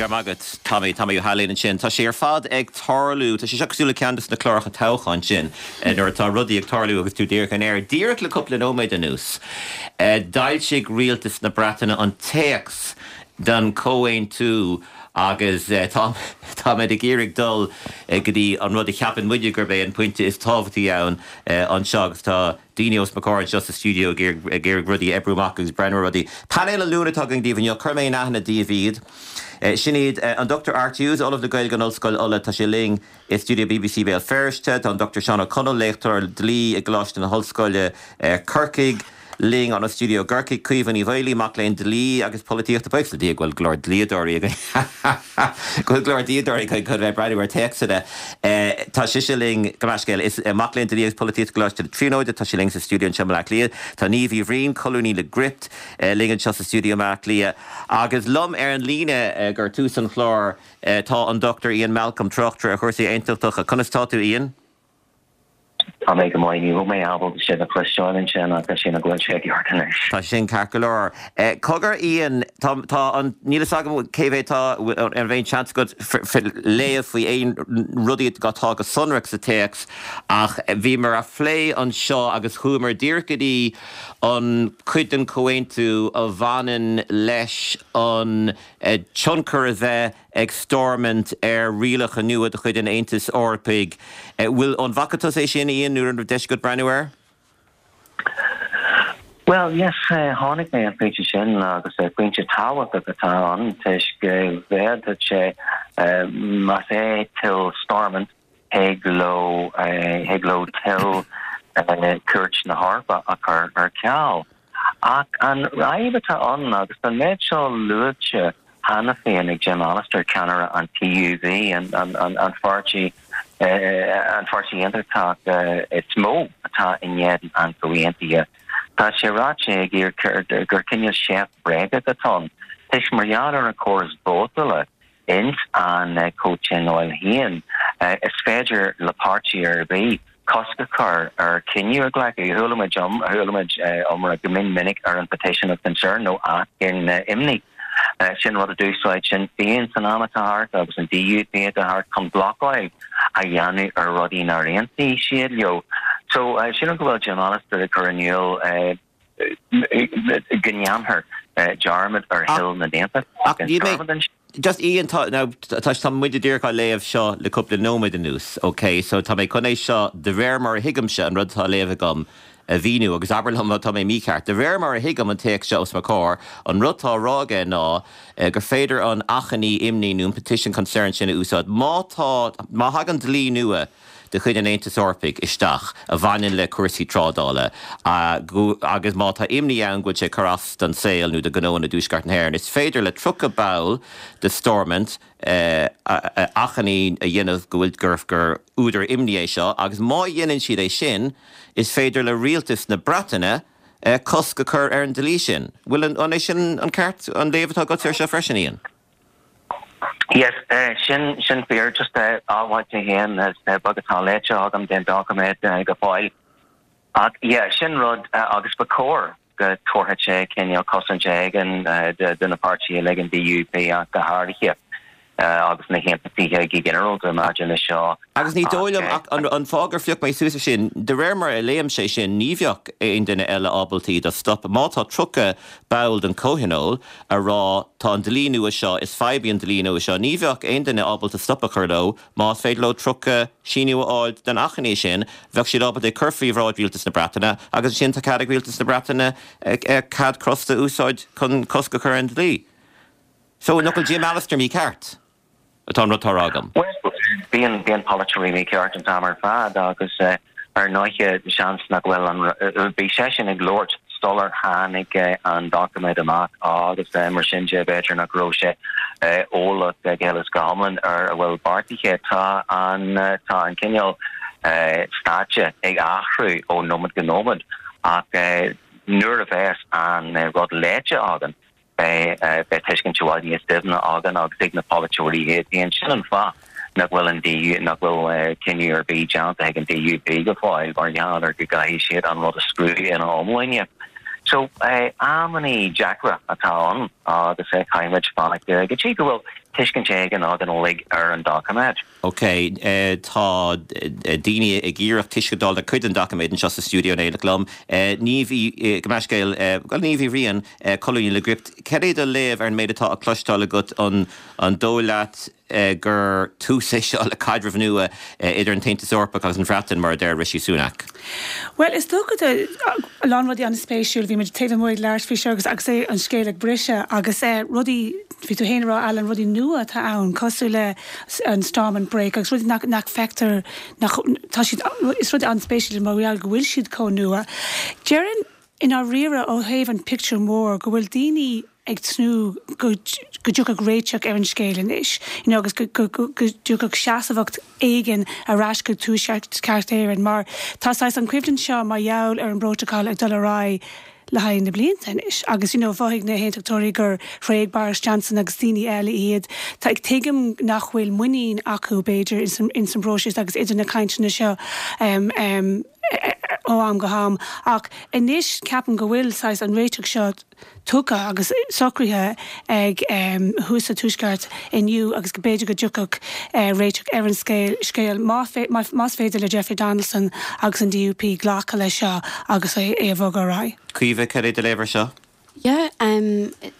Go raibh maith agat, Tommy, Tommy Ó hAilín ansin. Tá sé ar fad ag tarlú, tá sé seo cosúil le ceann de na cláracha toghcháin sin, nuair atá rudaí ag tarlú agus tú díreach in aer. Díreach le cúpla nóiméad anuas, d'fhoilsigh rialtas na Breataine an téacs den chomhaontú agus tá, táimid ag iarraidh dul go dtí an rud a cheapann muide gurb é an pointe is tábhachtaí ann anseo agus tá daoine os mo chomhair anseo sa stiúideo ag iarraidh rudaí a oibriú amach agus breathnú ar rudaí. Painéal an Luain atá againn daoibh inniu, cuirfidh mé in aithne daoibh iad. Sin iad an Dr Art Hughes, Ollamh le Gaeilge in Ollscoil Uladh, tá sé linn i stiúideo bbc Béal Feirste. Tá an Dr Seán Ó Conaill, léachtóir dlí i gColáiste na hOllscoile, Corcaigh, linn óna stiúideo i gCorcaigh. Caoimhe Ní Mhaolaí, mac léinn dlí agus polaitíochta. Buíochas le Dia go bhfuil go leor dlíodóirí againn go bhfuil go leor dlíodóirí againn chun bheith ag breathnú ar théacsanna. Tá sise linn, gabh mo leithscéal, is mac léinn dlí agus polaitíochta i gColáiste na Tríonóide. Tá sí linn sa stiúideo anseo i mBaile Átha Cliath. Tá Niamh Uí Bhriain, colúnaí le Gript, linn anseo sa stiúideo i mBaile Átha Cliath. Agus liom ar an líne gur tús an chláir tá an Dr Ian Malcolm, tráchtaire ar chúrsaí aontachtacha. Conas tá tú, Ian? Tá mé go maith. Ní raibh mé ábalta sibh a chloisteáil ansin ach sílim go bhfuil sé i gceart anois. Tá sin ceart go leor. Cogar, Ian, tá, tá an, níl fhios agam cé mhéad tá, an raibh aon seans agat léamh faoi aon rudaí atá go sonrach sa téacs ach bhíomar á phlé anseo agus chuamar díreach go dtí an cuid den chomhaontú a bhaineann leis an tionchar a bheith ag Stormont ar rialacha nua de chuid an Aontais Eorpaigh. Bhfuil, an bhfaca tusa é sin, Ian, nó an raibh deis agat breathnú air? Bhuel, yes, tháinig mé an pointe sin agus pointe tábhachtach atá ann toisc go bhféadfadh sé, más é toil Stormont, thig leo, thig leo toil Chúirt na hEorpa a chur ar ceal. Ach an fhadhb atá ann, agus tá an méid seo luaite cheana féin ag Jim Allister, ceannaire an TUV, an pháirtí an pháirtí aontachtach is mó atá in éadan an chomhaontaithe, tá sé ráite aige gur cineál seift bhréagach atá ann, toisc mar gheall ar an chóras vótála ins an comhthionól féin, is féidir le páirtí ar bith cosc a chur ar chinneadh a ghlacadh. Chuala muid chuala muid iomrá go mion minic ar an petition of concern nó achainí imní. Sin rud a d'úsáid Sinn Féin san am atá thart agus an DUP atá thart chun blocáil a dhéanamh ar rudaí nár aontaigh siad leo. So sílim go bhfuil Jim Allister ag cur in iúl go ndéanfar dearmad ar thoil na n-aontachtach in Stormont. Just Ian, tá, now, tá, tá muid díreach á léamh seo le cúpla nóiméad anuas, ok? So tá mé chun é seo, de réir mar a thuigimse an rud atá á léamh agam, a mhíniú, agus abair liom má tá mé mícheart. De réir mar a thuigim an téacs seo os mo chomhair, an rud atá á rá aige ná gur féidir an achainí imní nó an petition concern sin a úsáid má tá, má thagann dlí nua de chuid an Aontais Eorpaigh isteach a bhaineann le cúrsaí trádála agus má tá imní ann go bhfuil sé ag cur as don saol nó do ghnóanna i dTuaisceart na hÉireann, is féidir le 30 ball de Stormont achainí a dhéanamh go bhfuil gur gur údar imní é seo agus má dhéanann siad é sin is féidir le rialtas na Breataine cosc a chur ar an dlí sin. Bhfuil an an é sin an ceart an léamh atá agatsa air seo freisin, Ian? Yes, sin, sin fíor. Just admháil mé féin, is beag atá léite agam den doiciméad go fóill. Ach yeah, sin rud agus ba chóir go dtabharfadh sé cineál cosaint éigin do na páirtithe uilig, an DUP ach go háirithe, agus na hAontachtaithe go ginearálta maidir leis seo. Agus ní dóigh liom ach an fáth gur phioc mé suas é sin, de réir mar a léim sé sin, ní bheadh aon duine eile ábalta iad a stop. Má tá 30 ball den Chomhthionól a rá tá an dlí nua seo, is fadhb í an dlí nua seo, ní bheadh aon duine ábalta stop a chur leo. Más féidir leo 30 síniú a fháil den achainí sin, bheadh siad ábalta é cur faoi bhráid Rialtas na Breataine agus ansin tá cead ag Rialtas na Breataine cead crosta a úsáid chun cosc a chur ar an dlí. So, nach bhfuil Jim Allister mícheart? atá an rud atá á rá agam. Bhuel, bíonn, bíonn polaiteoirí mícheart an t-am ar fad agus ar ndóighe seans nach bhfuil an, bhí seisean ag labhairt sular tháinig an doiciméad amach agus mar sin de b'fhéidir nach raibh sé eolach go huile is go hiomlán ar a bhfuil beartaithe. Tá an, tá an cineál stáitse ag athrú ó nóiméad go nóiméad ach nuair a bheas an rud léite againn, Beidh tuiscint i bhfad níos doimhne againn agus ag na polaiteoirí iad féin. Sin an fáth nach bhfuil an DU, nach bhfuil cinneadh ar bith déanta ag an DUP go fóill mar gheall ar go gcaithfidh siad an rud a scrúdú ina iomláine. So, amannaí deacra atá ann agus caithfimid fanacht go dtí go bhfuil. tuiscint éigin againn uilig ar an doiciméad. Ok, tá daoine ag iarraidh tuiscint a fháil ar cuid den doiciméad anseo sa stiúideo in éineacht liom. Niamh Uí, gabh mo leithscéal, bhuel Niamh Uí Bhriain, colúnaí le Gript, cad é do léamh ar an méid atá á cloisteáil agat, an dóigh leat gur tús é seo le caidreamh nua idir an tAontas Eorpach agus an Bhreatain, mar a deir Rishi Sunak? Bhuel, is dócha tá a lán rudaí an-spéisiúil. Bhí muid taobh amuigh ag labhairt faoi seo agus agus é an scéal ag briseadh agus rudaí, bhí tú féin ag rá Alan, rudaí nua atá ann cosúil le an Stormont Brake agus rudaí nach nach feictear nach tá siad is rudaí an-spéisiúil mar gheall go bhfuil siad chomh nua. Déarfainn i ndáiríre ó thaobh an pictiúr mór go bhfuil daoine ag tnúth go go dtiocfadh réiteach ar an scéal anois you know agus go go go dtiocfadh seasmhacht éigin ar ais go Tuaisceart Éireann mar tá saghas an choimhlint seo mar gheall ar an bprótacal ag dul ar aghaidh le haghaidh na blianta anois agus you know mhothaigh na hAontachtóirí gur thréig Boris Johnson agus daoine eile iad. Tá tuigim nach bhfuil muinín acu b'fhéidir ins an ins an bpróiseas agus idir na cainteanna seo um um ó am go ham ach anois ceapaim go bhfuil saghas an réiteach seo tugtha agus socraithe ag thuas sa Tuaisceart inniu agus go b'fhéidir go dtiocfadh réiteach ar an scéal más féidir le Jeffrey Donaldson agus an DUP glacadh leis seo agus é a bhogadh ar aghaidh. Caoimhe, cad é do léamh ar seo? Yeah,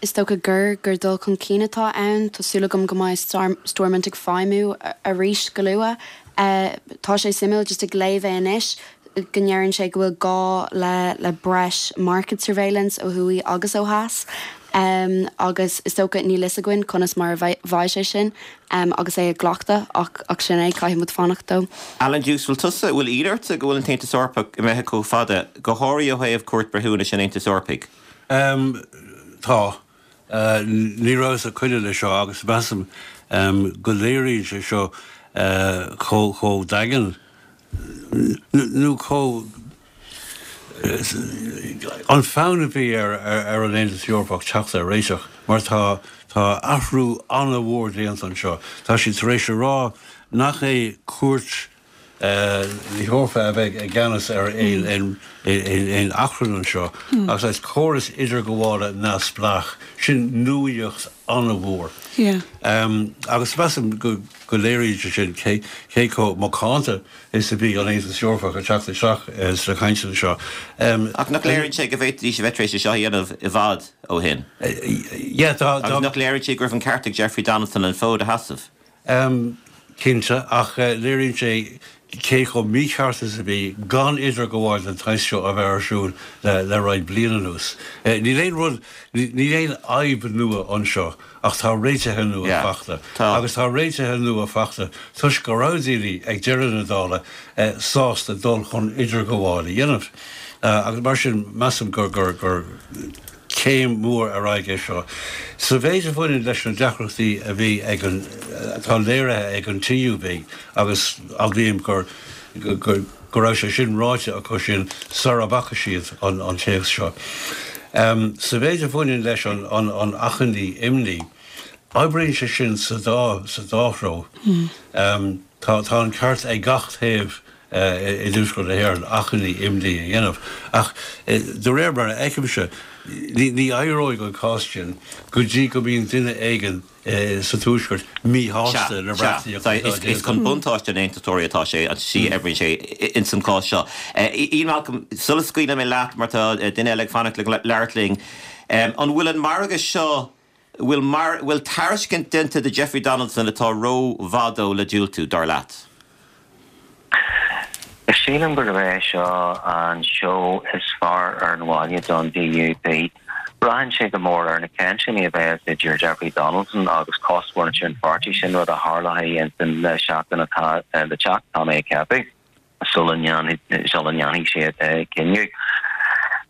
is dócha gur gur dul chun cinn atá ann. Tá súil agam go mbeidh Stormont ag feidhmiú arís go luath. Tá sé suimiúil just ag léamh é anois. go ndeireann sé go bhfuil gá le le breis market surveillance ó thuaidh agus ó theas agus is dócha níl fhios againn conas mar a bheidh sé sin agus é glactha ach ach sin é, caithfidh muid fanacht dó. Alan Dukes, bhfuil tusa, bhfuil ionadh ortsa go bhfuil an tAontas Eorpach imithe chomh fada, go háirithe ó thaobh Cúirt Breithiúnais an Aontais Eorpaigh? Tá. Ní rabhas ag coinne leis seo agus measaim go léiríonn sé seo chomh daingean nó chomh an fonn a bhí ar ar an Aontas Eorpach teacht ar réiteach mar tá tá athrú an-mhór déanta anseo. Tá siad tar éis a rá nach é cúirt na hEorpa a bheidh i gceannas ar aon achrann anseo agus is córas idirghabhála neamhspleách, sin nuaíocht an-mhór. Agus measaim go léiríonn sé sin cé chomh macánta is a bhí an Aontas Eorpach ag teacht isteach sna cainteanna seo. Ach nach léiríonn sé go bhféadfaidís a bheith tar éis é seo a dhéanamh i bhfad ó shin? Agus nach léiríonn sé go raibh an ceart ag Jeffrey Donaldson an fód a sheasamh? Cinnte, ach léiríonn sé cé chomh mícheart is a bhí gan idirghabháil den tsaghas seo a bheith ar siúl le roinnt bliain anuas. Níl aon rud, níl aon fhadhb nua anseo ach tá réitithe nua fachta. Agus tá réitithe nua fachta toisc go raibh daoine ag deireadh na dála sásta dul chun idirghabháil a dhéanamh. Agus mar sin measaim gur, gur, gur. Céim mhór ar aghaidh é seo. Sa mhéid a bhaineann leis na deacrachtaí a bhí ag an, atá léirithe ag an TUV, agus admhaím gur, go raibh sé sin ráite acu sin sara bhfaca siad an téacs seo. Sa mhéid a bhaineann leis an an achainí imní, oibríonn sé sin sa dá, sa dá threo. Tá, tá an ceart ag gach taobh i dTuaisceart na hÉireann achainí imní a dhéanamh. Ach de réir mar a fheicimse, ní éireoidh an cás sin go dtí go mbíonn duine éigin sa Tuaisceart míshásta le reachtaíocht atá déanta. Is chun buntáiste na nAontachtóirí atá sé, an tslí a oibríonn sé ins an chás seo. Ian Malcolm, sula scaoilfidh mé leat, mar tá duine eile ag fanacht le labhairt linn, an bhfuil an margadh seo, bhfuil mar, bhfuil tairiscint déanta do Jeffrey Donaldson atá ró-mhaith dó le diúltú, dar leat? Sílim gurb é seo an seó is fearr ar an bhaile don DUP. Braitheann sé go mór ar na cainteanna a bheas idir Jeffrey Donaldson agus cosmhuintir an pháirtí, sin rud a tharlóidh ins an seachtain atá le teacht, tá mé ag ceapadh. sula ndéanfaidh siad cinneadh.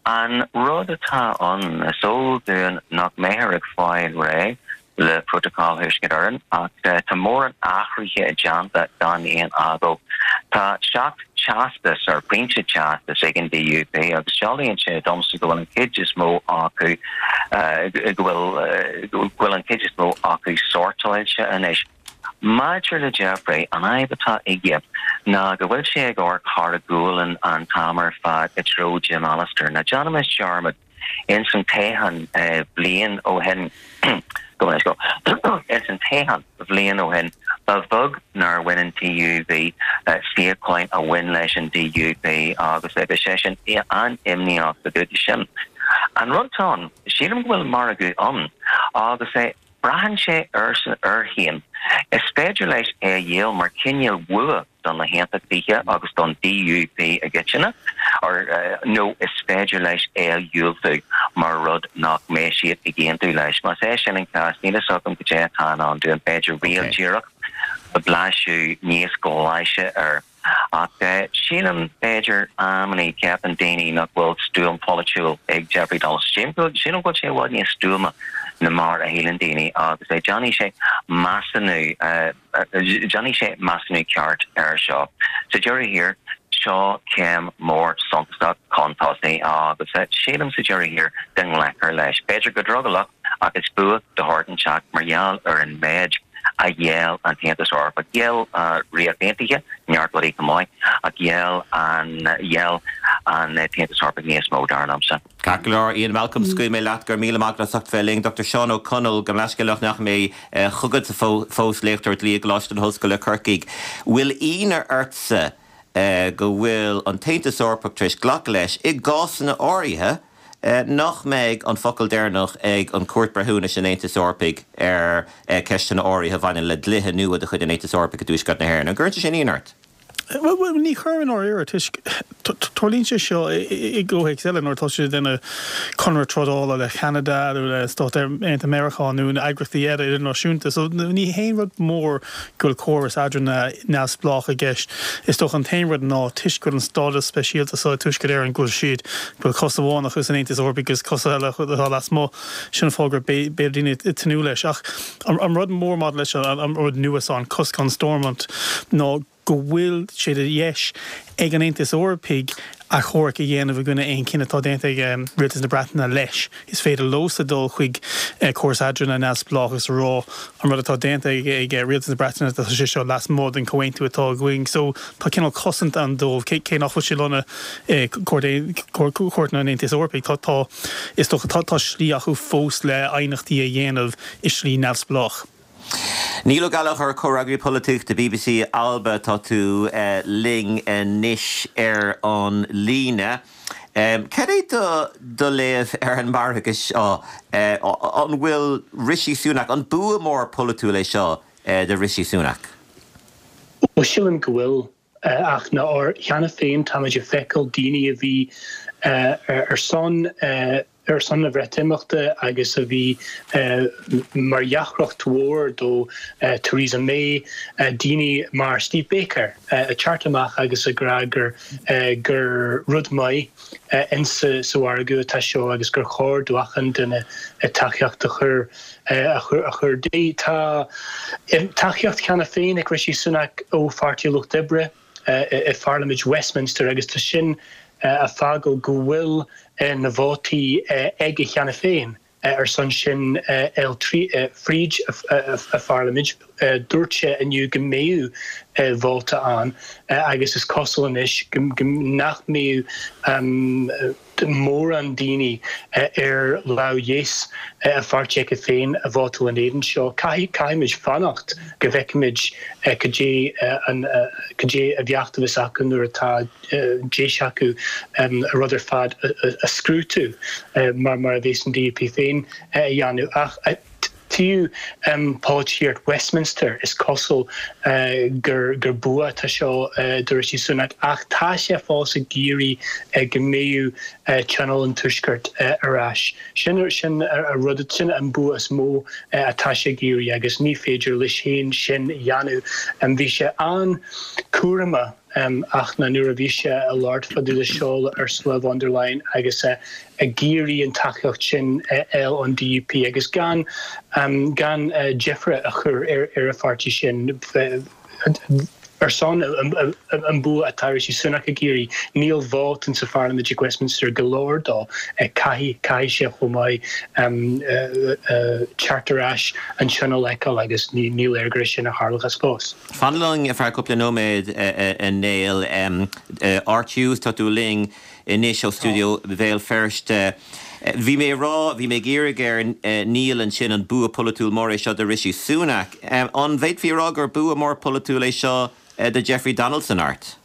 An rud atá ann, is eol dúinn nach mbeifear ag fáil réidh le Prótacal Thuaisceart Éireann ach tá mórán athruithe déanta gan aon agó. Tá 7 teastas, ar pointe teastais ag an DUP agus dealraíonn sé domsa go bhfuil an chuid is mó acu go bhfuil an chuid is mó acu sortáilte anois. Maidir le Jeffrey, an fhadhb atá aige ná go bhfuil sé ag amharc thar a ghualainn an t-am ar fad i dtreo Jim Allister. Ná déanaimis dearmad, ins an toghchán bliain ó shin. Gabh mo leithscéal. Ins an toghchán bhliain ó shin, ba bheag nár bhain an TUV suíocháin a bhain leis an DUP agus bhí sé sin an-imníoch fá dtaobh de sin. An rud atá ann, sílim go bhfuil margadh ann agus braitheann sé air féin. Is féidir leis é a dhíol mar chineál bhua do na hAontachtaithe agus don DUP i gcoitinne, nó is féidir leis é a dhiúltú mar rud nach mbeidh siad ag aontú leis. Más é sin an cás, níl a fhios agam cad é atá i ndán dúinn, b'fhéidir riail díreach, blaiseadh níos glaise air. Ach sílim, b'fhéidir, amannaí, ceapann daoine nach bhfuil stuaim pholaitiúil ag Jeffrey Donaldson. Sílim go bhfuil sé i bhfad níos stuama ná mar a shíleann daoine agus déanfaidh sé measúnú, Déanfaidh sé measúnú ceart air seo. Sa deireadh thiar, seo céim mór suntasach chun tosaigh agus sílim sa deireadh thiar go nglacfar leis. B'fhéidir go drogallach ach is bua de shórt inteacht mar gheall ar an méid a gheall an tAontas Eorpach. Gheall an Ríocht Aontaithe neart rudaí chomh maith ach gheall an gheall an tAontas Eorpach níos mó, dar liomsa. Ceart go leor, Ian Malcolm, scaoilfidh mé leat, go raibh míle maith agat as ucht bheith linn. Dr Seán Ó Conaill, gabh mo leithscéal nach ndeachaigh mé chugatsa fós, léachtóir dlí i gColáiste na hOllscoile Corcaigh. Bhfuil ionadh ortsa go bhfuil an tAontas Eorpach tar éis glacadh leis, i gcásanna áirithe, nach mbeidh an focal deireanach ag an Chúirt Breithiúnais an Aontais Eorpaigh ar cheisteanna áirithe a bhaineann le dlíthe nua de chuid an Aontais Eorpaigh i dTuaisceart na hÉireann? An gcuireann sé sin ionadh ort? Bhuel, ní chuireann i ndáiríre, toisc tarlaíonn sé seo i gcomhthéacs eile nuair atá siad ag déanamh conradh trádála le Ceanada nó le Stáit Aontaithe Meiriceá nó na eagraíochtaí eile idirnáisiúnta. So ní haon rud mór go bhfuil córas eadrána neamhspleách i gceist. Is dócha an t-aon rud ná toisc go bhfuil an stádas speisialta seo ag Tuaisceart Éireann go bhfuil siad, go bhfuil cos amháin acu san Aontas Eorpaigh agus cos eile acu atá lasmuigh, sin an fáth gur b'fhéidir daoine ag tnúth leis. Ach An rud mór maidir leis an rud nua seo, an cosc on Stormont, ná go bhfuil sé de dheis ag an Aontas Eorpaigh achomharc a dhéanamh i gcoinne aon chinneadh atá déanta ag Rialtas na Breataine leis. Is féidir leosa dul chuig córas eadrána neamhspleách agus a rá an rud atá déanta ag Rialtas na Breataine tá sé seo lasmuigh den chomhaontú atá againn. So tá cineál cosaint ann dóibh, cé nach bhfuil sé lonnaithe i gcúirteanna an Aontais Eorpaigh. Tá, is dócha, tá slí acu fós le aighneachtaí a dhéanamh i slí neamhspleách. Niall Ó Gallchóir, Comhfhreagraí Polaitíochta BBC Alba, tá tú linn anois ar an líne. Cad é do léamh ar an margadh seo? An bhfuil Rishi Sunak, an bua mór polaitiúil é seo do Rishi Sunak? Bhuel, sílim go bhfuil. Ach ná cheana féin táimid ag feiceáil daoine a bhí ar son ar son na Bhreatimeachta agus a bhí mar dheacracht mhór do Theresa May, daoine mar Steve Baker ag teacht amach agus ag rá gur gur rud maith insa sa mhargadh atá seo agus gur chóir do achan duine tacaíocht a chur a chur di. Tá tacaíocht cheana féin ag Rishi Sunak ó Pháirtí Lucht Oibre i Pharlaimint Westminster agus tá sin ag fágáil go bhfuil na vótaí aige cheana féin ar son sin fháil fríd a pharlaimint. Dúirt sé inniu go mbeadh vóta ann agus is cosúil anois nach mbeadh mórán daoine ar lámh dheis a pháirtí aige féin a vótáil in éadan seo. Caithfimid fanacht go bhfeicfimid cad é an cad é a bheacht a bheas acu nuair atá deis acu an rud ar fad a scrútú mar mar a bheas an DUP féin a dhéanamh. Ach taobh polaitíocht Westminster, is cosúil gur gur bua atá seo do Rishi Sunak ach tá sé fós ag iarraidh go mbeadh Tionól an Tuaiscirt ar ais. Sin sin a rud, sin an bua is mó atá sé ag iarraidh agus ní féidir leis féin sin a dhéanamh. Bhí sé an-chúramach ach ná nuair a bhí sé ag labhairt fá dtaobh de seo le Ursula von der Leyen agus ag iarraidh an tacaíocht sin a fháil ón DUP agus gan gan deifre a chur ar ar a pháirtí sin ar son an bua atá Rishi Sunak ag iarraidh. Níl vóta sa pharlaimint ag Westminster go leor dó. Caithfidh caithfidh sé chomh maith teacht ar ais an tionól a fheiceáil agus ní léir gur é sin a tharlóchas fós. Fan linn ar feadh cúpla nóiméad, a Néill. Art Hughes, tá tú linn anois ó stiúideo Bhéal Feirste. Bhí mé ag rá, bhí mé ag iarraidh ar Niall ansin an bua polaitiúil mór é seo do Rishi Sunak. An bhféadfaí a rá gur bua mór polaitiúil é seo do Jeffrey Donaldson, Art?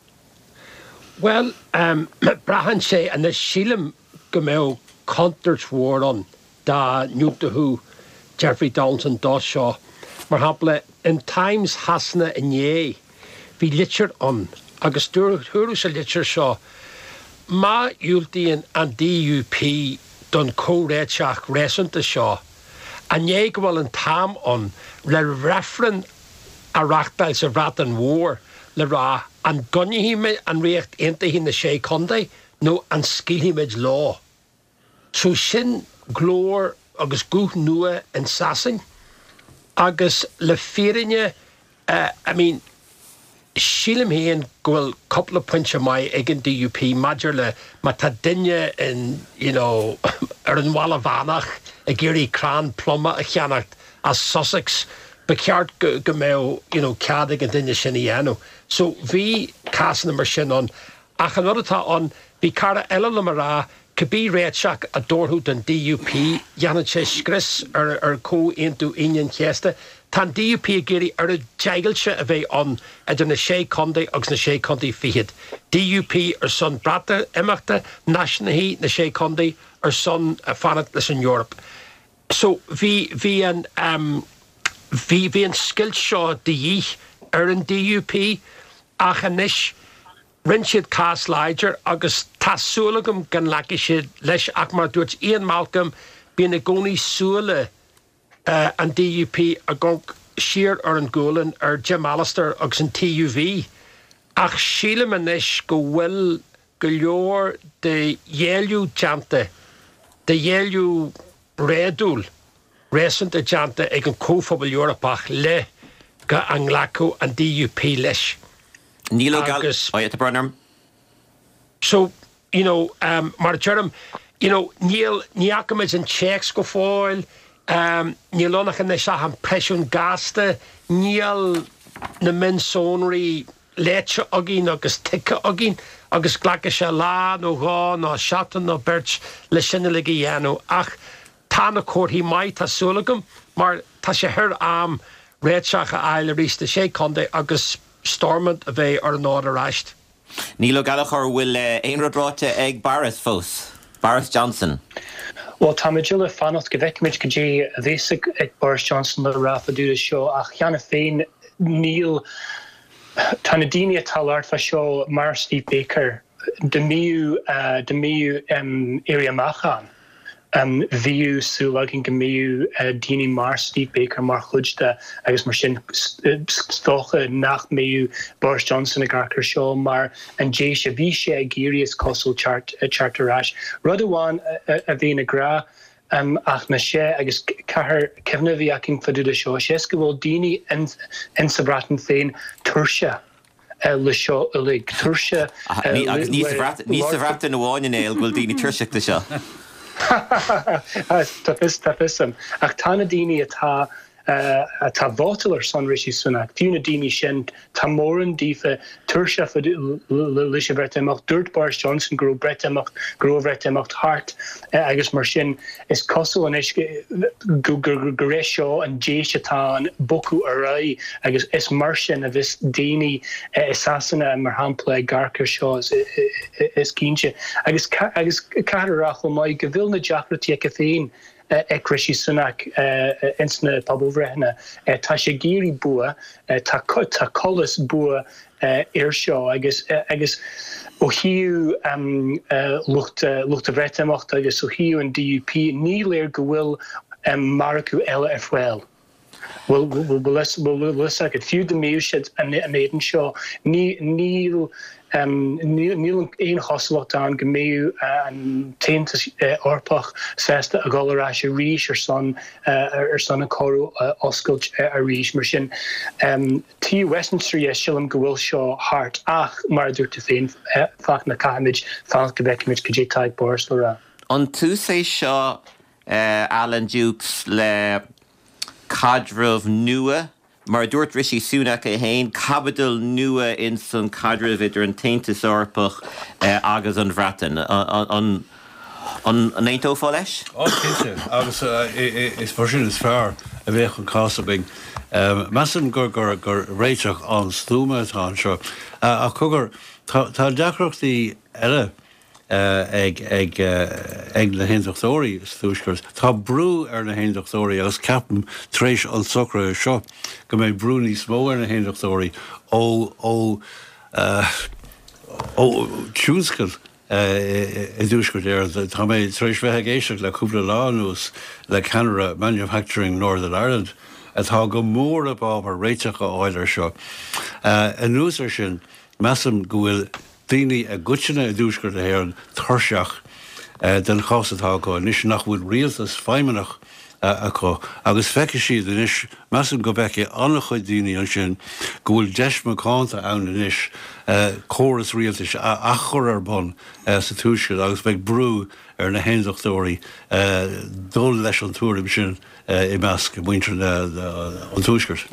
Bhuel, braitheann sé anois, sílim go mbeadh contúirt mhór ann dá ndiúltódh Jeffrey Donaldson dó seo. Mar shampla, in Times Shasana inné, bhí litir ann agus dúradh sa litir seo, má dhiúltaíonn an DUP don chomhréiteach réasúnta seo, an é go bhfuil an t-am ann le reifreann a reachtáil sa Bhreatain Mhór le rá an gcoinneoidh an Ríocht Aontaithe na Sé Chontae nó an scaoilfimid leo? So sin glór agus guth nua in Sasain agus le fírinne I mean sílim féin go bhfuil cúpla pointe maith ag an DUP maidir le má tá duine in you know ar an Bhaile Mheánach ag iarraidh crann pluma a cheannacht as Sussex ba cheart go go mbeadh you know cead ag an duine sin a dhéanamh. So bhí cásanna mar sin ann Ach an rud atá ann, bhí cara eile liom a rá, cibé réiteach a dtabharfadh don DUP, dhéanfadh sé scrios ar Chomhaontú Aoine an Chéasta. Tá an DUP ag iarraidh oiread deighilte a bheith ann idir na Sé Chontae agus na Sé Chontae Fichead. DUP ar son Breatimeachta, Náisiúnaithe na Sé Chontae ar son fanacht leis an Eoraip. So bhí, bhí an, bhí, bhí an scoilt seo de dhíth ar an DUP ach anois rinne siad cás láidir agus tá súil agam go nglacfaidh siad leis ach mar a dúirt Ian Malcolm bíonn i gcónaí súile an DUP ag amharc siar ar an ghualainn ar Jim Allister agus an TUV ach sílim anois go bhfuil go leor de ghéilleadh déanta, de ghéilleadh réadúil, réasúnta déanta ag an Chomhphobal Eorpach le go an nglacfadh an DUP leis. Níl Ó Agus. Oh yeah, tá brón orm. So, you know, mar a deirim, you know, níl, ní fhaca muid an téacs go fóill, níl ann ach anois ach an preisiún gasta, níl na mionsonraí léite againn agus tuigthe againn agus glacfaidh sé lá nó dhó nó seachtain nó beirt le sin uilig a dhéanamh ach tá na comharthaí maith, tá súil agam, mar tá sé thar am réiteach a fháil arís do Sé Chontae agus Stormont a bheith ar an fhód arís. Niall Ó Gallchóir, bhfuil aon rud ráite ag Boris fós? Boris Johnson. Bhuel, táimid uile ag fanacht go bhfeicfimid cad é a bheas ag Boris Johnson le rá fá dtaobh de seo ach cheana féin níl Tá na daoine atá ag labhairt fá seo mar Steve Baker, dá mbíodh dá mbíodh éirí amach ann, bhíodh súil againn go mbíodh daoine mar Steve Baker mar chuid de agus mar sin is dócha nach mbeadh Boris Johnson ag amharc ar seo mar an deis a bhí sé ag iarraidh is cosúil teacht teacht ar ais. Rud amháin a bhíonn ag rá Ach ná sé, agus caithfear cuimhne a bheith againn fá dtaobh de seo, sé is go bhfuil daoine in sa Bhreatain féin tuirseach le seo uilig, tuirseach le. Agus ní sa Bhreatain amháin, a Néill, go bhfuil daoine tuirseach de seo. Tá fios, tá fios a'm. Ach tá na daoine atá atá ag vótáil ar son Rishi Sunak, fiú na daoine sin, tá mórán daofa tuirseach leis an Bhreatimeacht. Dúirt Boris Johnson go raibh Breatimeacht, go raibh an Bhreatimeacht thart agus mar sin is cosúil anois gur é seo an deis atá ann bogadh ar aghaidh agus is mar sin a bheas daoine i Sasana, mar shampla, ag amharc ar seo is cinnte. Agus caithfear a rá chomh maith go bhfuil na deacrachtaí aige féin ag Rishi Sunak ins na pobalbhreitheanna. Tá sé ag iarraidh bua, tá colas bua air seo agus agus ó thaobh lucht lucht an Bhreatimeachta agus ó thaobh an DUP ní léir go bhfuil margadh eile ar fáil. Bhfuil fhios agat, fiú dá mbeadh siad in éadan seo, níl níl aon chosúlacht ann go mbeadh an tAontas Eorpach sásta a dhul ar ais arís ar son ar son an comhrá a oscailt arís. Mar sin, taobh Westminster dhe, sílim go bhfuil seo thart ach, mar a dúirt tú féin, Fachtna, caithfimid fanacht go bhfeicfimid cad é atá ag Boris le rá. An tús é seo, Alan Dukes, le caidreamh nua, mar a dúirt Rishi Sunak é féin, caibidil nua ins an caidreamh idir an tAontas Eorpach agus an Bhreatain. An n-aontófá leis? Ó, cinnte, agus is mar sin is fearr a bheadh an cás againn. Measaim gur réiteach an-stuama atá anseo. Ach cogar, tá deacrachtaí eile ag na hAontachtóirí sa Tuaisceart. Tá brú ar na hAontachtóirí agus ceapaim tar éis an tsocraithe seo go mbeidh brú níos mó ar na hAontachtóirí ó ó ó tionscal i dTuaisceart Éireann. Tá mé tar éis bheith ag éisteacht le cúpla lá anuas le ceannaire Manufacturing Northern Ireland atá go mór i bhfabhar réiteach a fháil air seo. Anuas air sin, measaim go bhfuil daoine i gcoitinne i dTuaisceart na hÉireann tuirseach den chás atá acu anois, nach bhfuil rialtas feidhmeannach acu agus feicfidh siad anois, measaim go bhfeicfidh an-chuid daoine ansin go bhfuil deis mhacánta ann anois córas rialtais a athchur ar bun sa Tuaisceart agus beidh brú ar na hAondachtóirí dul leis an tuairim sin. i measc muintir an Tuaiscirt.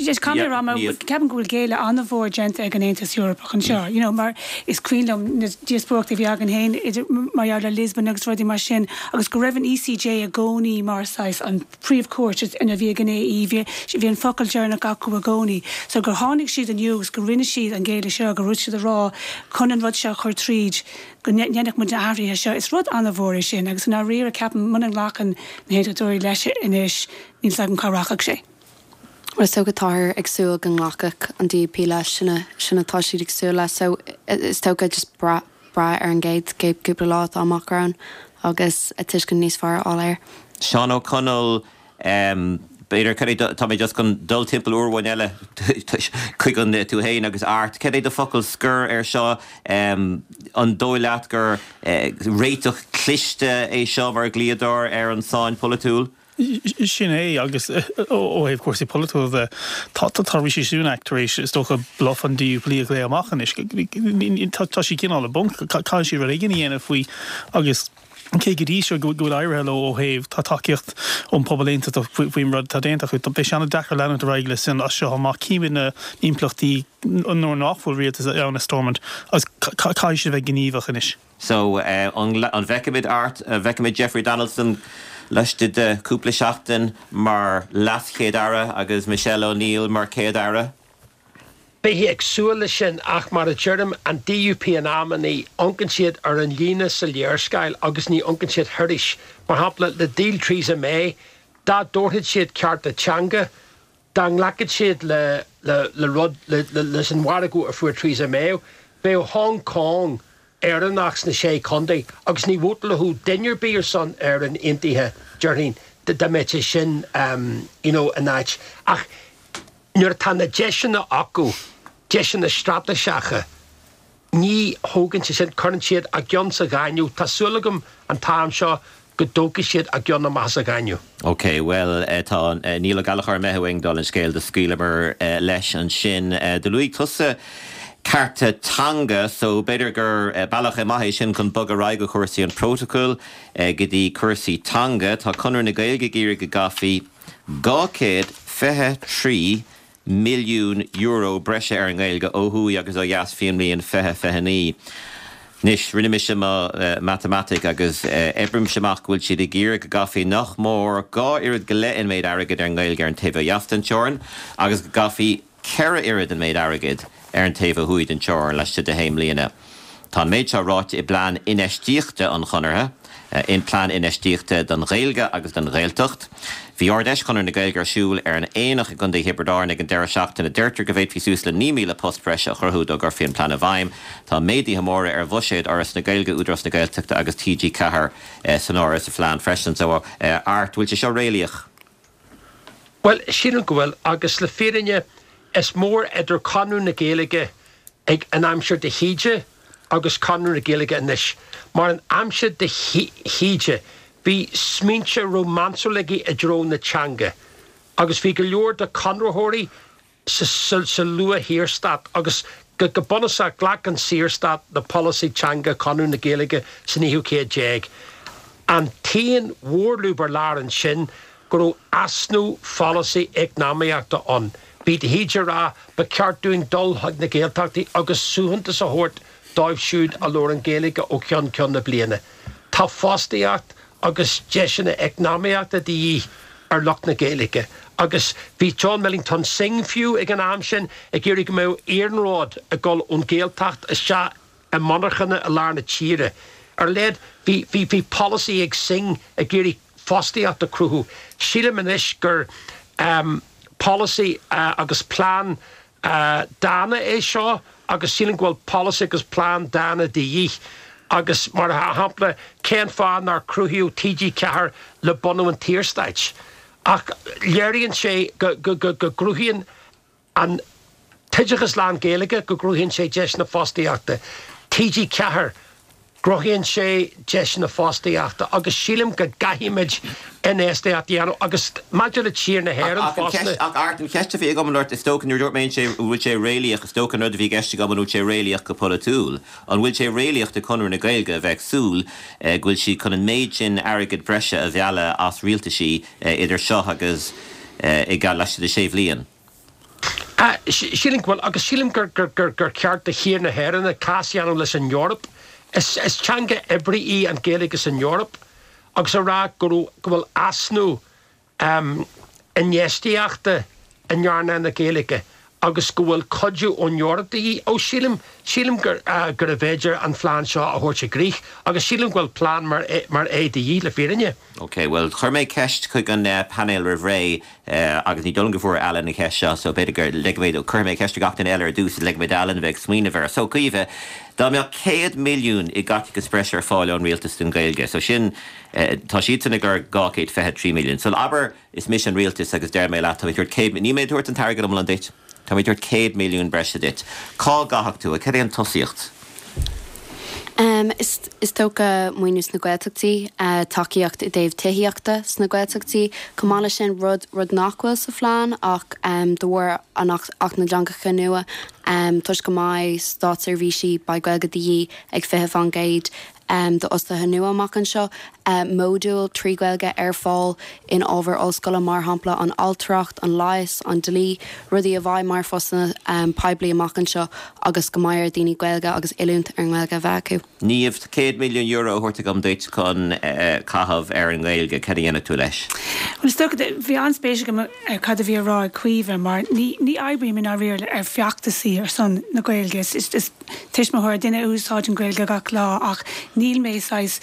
Just caithfidh mé a rá, ceapaim go bhfuil géilleadh an-mhór déanta ag an Aontas Eorpach anseo, you know, mar is cuimhin liom na díospóireachtaí a bhí againn féin idir mar gheall ar Lisbon agus rudaí mar sin agus go raibh an ECJ i gcónaí mar saghas an príomhchúirt a bhí ag an AE, bhí bhí an focal deireanach acu i gcónaí. So gur tháinig siad inniu agus go rinne siad an géilleadh seo, go raibh siad ag rá chun an rud seo a chur tríd, go ndéanfadh muid na hathruithe seo. Is rud an-mhór é sin agus i ndáiríre ceapaim muna nglacann na hAontachtóirí leis anois níl 's agam cá rachaidh sé. Bhuel is dócha táthar ag súil go nglacfadh an DUP leis, sin a, sin atá siad ag súil leis so is dócha just brath, brath ar an gcéad, gcéad cúpla lá atá amach romhainn agus tuiscint níos fearr a fháil air. Seán Ó Conaill, B'fhéidir, cad é do, tá mé just chun dul timpeall uair amháin eile chuig an, tú fhéin agus Art, cad é do focal scoir ar seo? An dóigh leat gur réiteach cliste é seo mar dhlíodóir ar an tsáinn pholaitiúil? Sin é, agus ó thaobh cúrsaí polaitiúla de, tá, tá Rishi Sunak tar éis, is dócha, bluff an DUP a ghlaoch amach anois. Tá siad cineál i bponc, caithfidh siad rud éigin a dhéanamh faoi agus, Cé go dtí seo go bhfuil éirithe leo ó thaobh, tá tacaíocht ón pobal aontachtach faoin rud atá déanta acu, beidh sé an-deacair leanúint ar aghaidh leis sin as seo amach. Címid na himpleachtaí nuair nach bhfuil rialtas ann i Stormont agus caithfidh siad a bheith gníomhach anois. So, an bhfeicfimid Art, an bhfeicfimid Jeffrey Donaldson laistigh de chúpla seachtain mar LeasChéad-Aire agus Michelle O'Neill mar Chéad-Aire? Bheifí ag súil leis sin ach mar a deirim, an DUP in amannaí, amharcann siad ar an líne sa léarscáil agus ní amharcann siad thairis. Mar shampla, le díol Theresa May, dá dtabharfadh siad cearta teanga, dá nglacfadh siad le le rud, leis an mhargadh a fuair Theresa May, bheadh Hong Kong Éireannach sna Sé Chontae agus ní vótálfadh duine ar bith ar son Éireann Aontaithe, déarfainn, dá mbeadh sé sin you know in áit. Ach Nuair atá na deiseanna acu, deiseanna straitéiseacha, ní thógann siad sin, cuireann siad a gceann sa ghaineamh. Tá súil agam an t-am seo go dtógfaidh siad a gceann amach as an ghaineamh. OK, bhuel, tá Niall Ó Gallchóir imithe uainn dála an scéil, do scaoileamar leis ansin. Do luaigh tusa cearta teanga, so b'fhéidir gur bealach maith é sin chun bogadh ar aghaidh ó chúrsaí an phrótacail go dtí cúrsaí teanga. Tá Conradh na Gaeilge ag iarraidh go gcaithfí €223 milliún breise ar an nGaeilge ó thuaidh agus ó dheas faoin mbliain 2029. Anois, rinne mise mo mhatamaitic agus oibrímse amach go bhfuil siad ag iarraidh go gcaithfí nach mór dhá oiread go leith an méid airgid ar an nGaeilge ar an taobh ó dheas den teorainn agus go gcaithfí 4 oiread an méid airgid ar an taobh ó thuaidh den teorainn laistigh de shé mbliana. Tá an méid seo ráite i bplean infheistíochta an Chonartha, in Plean Infheistíochta don Ghaeilge agus don Ghaeltacht. Bhí Ard-Fheis Chonradh na Gaeilge ar siúl ar an Aonach i gContae Thiobraid Árann ag an deireadh seachtaine. Deirtear go bhféadfaí suas le 9,000 post breise a chruthú dá gcuirfí an plean i bhfeidhm. Tá méaduithe móra ar bhuiséad Fhoras na Gaeilge, Údarás na Gaeltachta agus TG4 san áireamh sa phlean freisin. So, Art, bhfuil sé seo réalaíoch? Bhuel, sílim go bhfuil, agus le fírinne, is mór idir Conradh na Gaeilge ag an aimsir de hÍde agus Conradh na Gaeilge anois, mar an aimsir de hÍde, bhí smaointe rómánsúla aige i dtreo na teanga, agus bhí go leor de chonraitheoirí sa luath-Shaorstát agus go bunúsach ghlac an Saorstát le polasaí teanga Chonradh na Gaeilge san naoú céad déag. An t-aon mhórlúb ar lár ansin go raibh easnamh pholasaí eacnamaíochta ann. Bhí de hÍde ag rá ba cheart dúinn dul chuig na Gaeltachtaí agus suaitheantas a thabhairt. dóibh siúd a labhrann Gaeilge ó cheann ceann na bliana. Tá fostaíocht agus deiseanna eacnamaíochta de dhíth ar lucht na Gaeilge agus bhí John Millington Synge fiú ag an am sin ag iarraidh go mbeadh iarnród ag dul ón Ghaeltacht isteach i monarchana i lár na tíre. Ar a laghad bhí bhí bhí polasaí ag Synge ag iarraidh fostaíocht a chruthú. Sílim anois gur polasaí agus plean dána é seo agus sílim go bhfuil polasaí agus plean dána de dhíth agus mar shampla cén fáth nár cruthaíodh TG4 le bunú an tSaorstáit? Ach léiríonn sé go gcruthaíonn an t-oideachas lán-Ghaeilge go gcruthaíonn sé deiseanna fostaíochta. TG4. gcruthaíonn sé deiseanna fostaíochta agus sílim go gcaithfimid infheistíocht a dhéanamh agus maidir le tír na hÉireann fosta. Ach Art, an cheist a bhí agam ort, is dócha nuair a dúirt mé an bhfuil sé réalaíoch, is dócha an rud a bhí i gceist agam an bhfuil sé réalaíoch go polaitiúil. An bhfuil sé réalaíoch do Chonradh na Gaeilge a bheith ag súil go bhfuil siad chun an méid sin airgead breise a mhealladh as rialtaisí idir seo agus i laistigh de sé bhliain? Sílim go bhfuil, agus sílim gur ceart do thír na hÉireann cás a dhéanamh leis an Eoraip. Is teanga oibre í an Ghaeilge san Eoraip agus a rá go raibh, go bhfuil easnamh infheistíochta in earnáil na Gaeilge agus go bhfuil cuidiú ón Eoraip de dhíth. Ó, sílim, sílim gurbh fhéidir an phlean seo a thabhairt i gcrích agus sílim go bhfuil plean mar é de dhíth, le fírinne. Ok, bhuel, chuir mé ceist chuig an painéal roimh ré Agus ní dóigh liom go bhfuair Alan an cheist seo, so b'fhéidir go ligfidh mé dó, cuirfidh mé ceist ar gach duine eile ar dtús, ligfidh mé d'Alan a bheith ag smaoineamh air. So, Caoimhe, dá mbeadh 100 milliún i gcaiteachas breise ar fáil ón rialtas don Ghaeilge, so sin, tá siadsan ag lorg 223 milliún. So, abair, is mise an rialtas agus deir mé leat, tá mé ag tabhairt 100, níl mé ag tabhairt an t-airgead iomlán duit, Tá mé ag tabhairt 100 milliún breise duit. Cá gcaithfeadh tú é? Cad é an tosaíocht? Is dócha maoiniú sna Gaeltachtaí, tacaíocht i dtaobh tithíochta sna Gaeltachtaí. Chomh maith leis sin, rud rud nach bhfuil sa phlean ach de bharr an Acht na dTeangacha nua, toisc go mbeidh státseirbhísí, beidh Gaeilge de dhíth ag 20%, d'fhostaithe nua amach anseo, módúil 3 Ghaeilge ar fáil in ábhair ollscoile, mar shampla an ailtireacht, an leigheas, an dlí, rudaí a bheidh mar phostanna poiblí amach anseo agus go mbeidh ar dhaoine Gaeilge agus oiliúint ar an nGaeilge a bheith acu. Niamh, €100 milliún a thabhairt agam duit chun caitheamh ar an nGaeilge, cad a dhéanfadh tú leis? Bhuel, is dócha, bhí an-spéis agam ar cad a bhí á rá ag Caoimhe mar ní ní oibrím i ndáiríre ar feachtasaí ar son na Gaeilge. Is tuismitheoir, duine a úsáideann Gaeilge gach lá ach níl mé saghas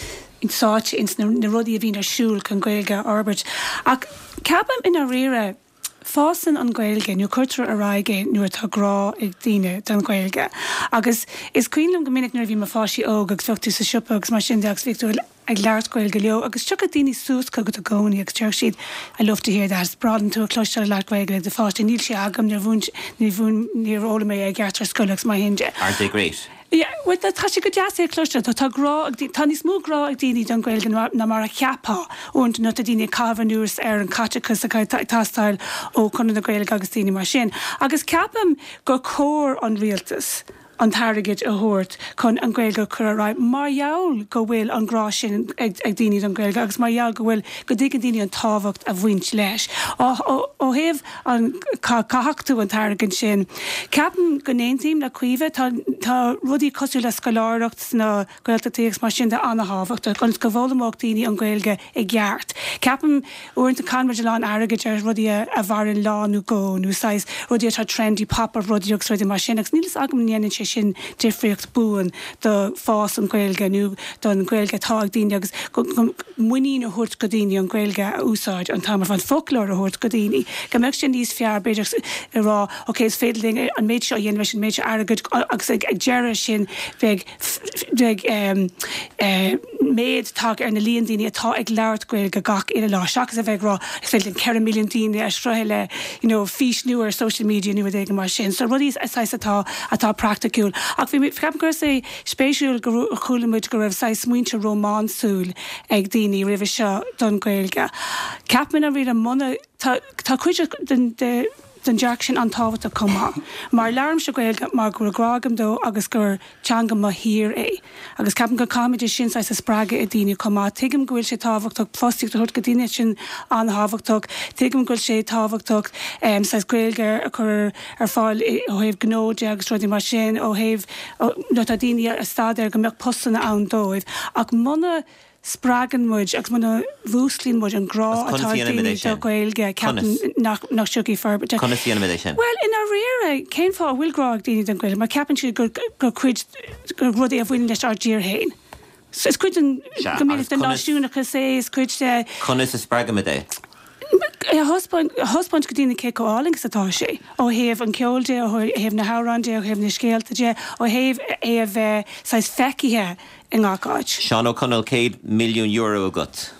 sáite ins na rudaí a bhíonn ar siúl chun Gaeilge a fhorbairt. Ach ceapaim i ndáiríre, fásann an Ghaeilge nó cuirtear ar aghaidh é nuair atá grá ag daoine don Ghaeilge. Agus is cuimhin liom go minic nuair a bhí mo pháistí óg agus bheadh tú sa siopa agus mar sin de agus bhíodh tú ag labhairt Gaeilge leo agus tiocfadh daoine suas chugat i gcónaí agus déarfadh siad I love to hear that, is breá liom tú a chloisteáil ag labhairt Gaeilge le do pháistí, níl sé agam, níor mhúin, níor mhúin, níor fhoghlaim mé é i gceart ar scoil agus mar sin de. Aren't they great? Yeah, well tá sé go deas é a chloisteáil, tá, tá grá ag, tá níos mó grá ag daoine don Ghaeilge ná, ná mar a cheapfá uaireanta nuair atá daoine ag caitheamh anuas ar an chaiteachas atá ag teastáil ó Chonradh na Gaeilge agus daoine mar sin. Agus ceapaim gur chóir an rialtas, an t-airgead a thabhairt chun an Ghaeilge a chur ar aghaidh mar gheall go bhfuil an grá sin ag daoine don Ghaeilge agus mar gheall go bhfuil, go dtuigeann daoine an tábhacht a bhaint leis. Ó thaobh an cá gcaithfeadh tú an t-airgead sin, ceapaim go n-aontaím le Caoimhe, tá, tá rudaí cosúil le scoláireacht sna Gaeltachtaí agus mar sin de an-thábhachtach ionas go bhfoghlaimeodh daoine an Ghaeilge i gceart. Ceapaim, uaireanta caitheann muid a lán airgid ar rudaí a mhaireann lá nó dhó nó saghas rudaí atá trendy, pop-up rudaí agus rudaí mar sin agus níl fhios agam an ndéanann sé sin difríocht buan do fás an Ghaeilge nó don Ghaeilge atá ag daoine agus go muinín a thabhairt go daoine an Ghaeilge a úsáid an t-am ar fad, foclóir a thabhairt go daoine, go mbeadh sé níos fearr b'fhéidir a rá ok is féidir linn an méid seo a dhéanamh leis an méid seo airgid agus ag deireadh sin beidh beidh méid tagtha ar na líon daoine atá ag labhairt Gaeilge gach uile lá seachas a bheith ag rá is féidir linn 4 milliún daoine a shroicheadh le you know fís nua ar social media nó rud éigin mar sin. So rudaí saghas atá atá praiticiúil. Ach bhí mé ceapaim go raibh sé spéisiúil go chuala muid go raibh saghas smaointe rómánsúil ag daoine roimhe seo don Ghaeilge. Ceapaim i ndáiríre muna tá tá cuid den de. don dearcadh sin an-tábhachtach chomh maith. Mar labhraímse Gaeilge mar go bhfuil grá agam dó agus gur teanga mo thír é. Agus ceapaim go caithfimid é sin saghas a spreagadh i daoine chomh maith. Tuigim go bhfuil sé tábhachtach fostaíocht a thabhairt go daoine, sin an-thábhachtach. Tuigim go bhfuil sé tábhachtach saghas Gaeilge a chur ar fáil ó thaobh gnó de agus rudaí mar sin, ó thaobh nuair atá daoine ag staidéar go mbeadh postanna ann dóibh. Ach muna spreagann muid agus muna mhúsclaíonn muid an grá Agus atá conas ag a dhéanaimid daoine é do sin? Ghaeilge, Conas? ceapaim nach nach dtiocfaidh forbairt. Conas a dhéanaimid é sin? Bhuel, i ndáiríre, cén fáth a bhfuil grá ag daoine don Ghaeilge? Mar ceapann siad gur gur cuid, gur rud é a bhaineann leis ár dtír féin. So is cuid den, Sea, go agus minic, den conas, náisiúnachas é, is cuid de. conas a spreagaimid é? A thaispeáint, a thaispeáint go daoine cé chomh álainn is atá sé, ó thaobh an cheoil de, ó thaobh na hamhráin de, ó thaobh na scéalta de, ó thaobh é a bheith saghas feicthe i ngach áit. Seán Ó Conaill, €100 milliún agat.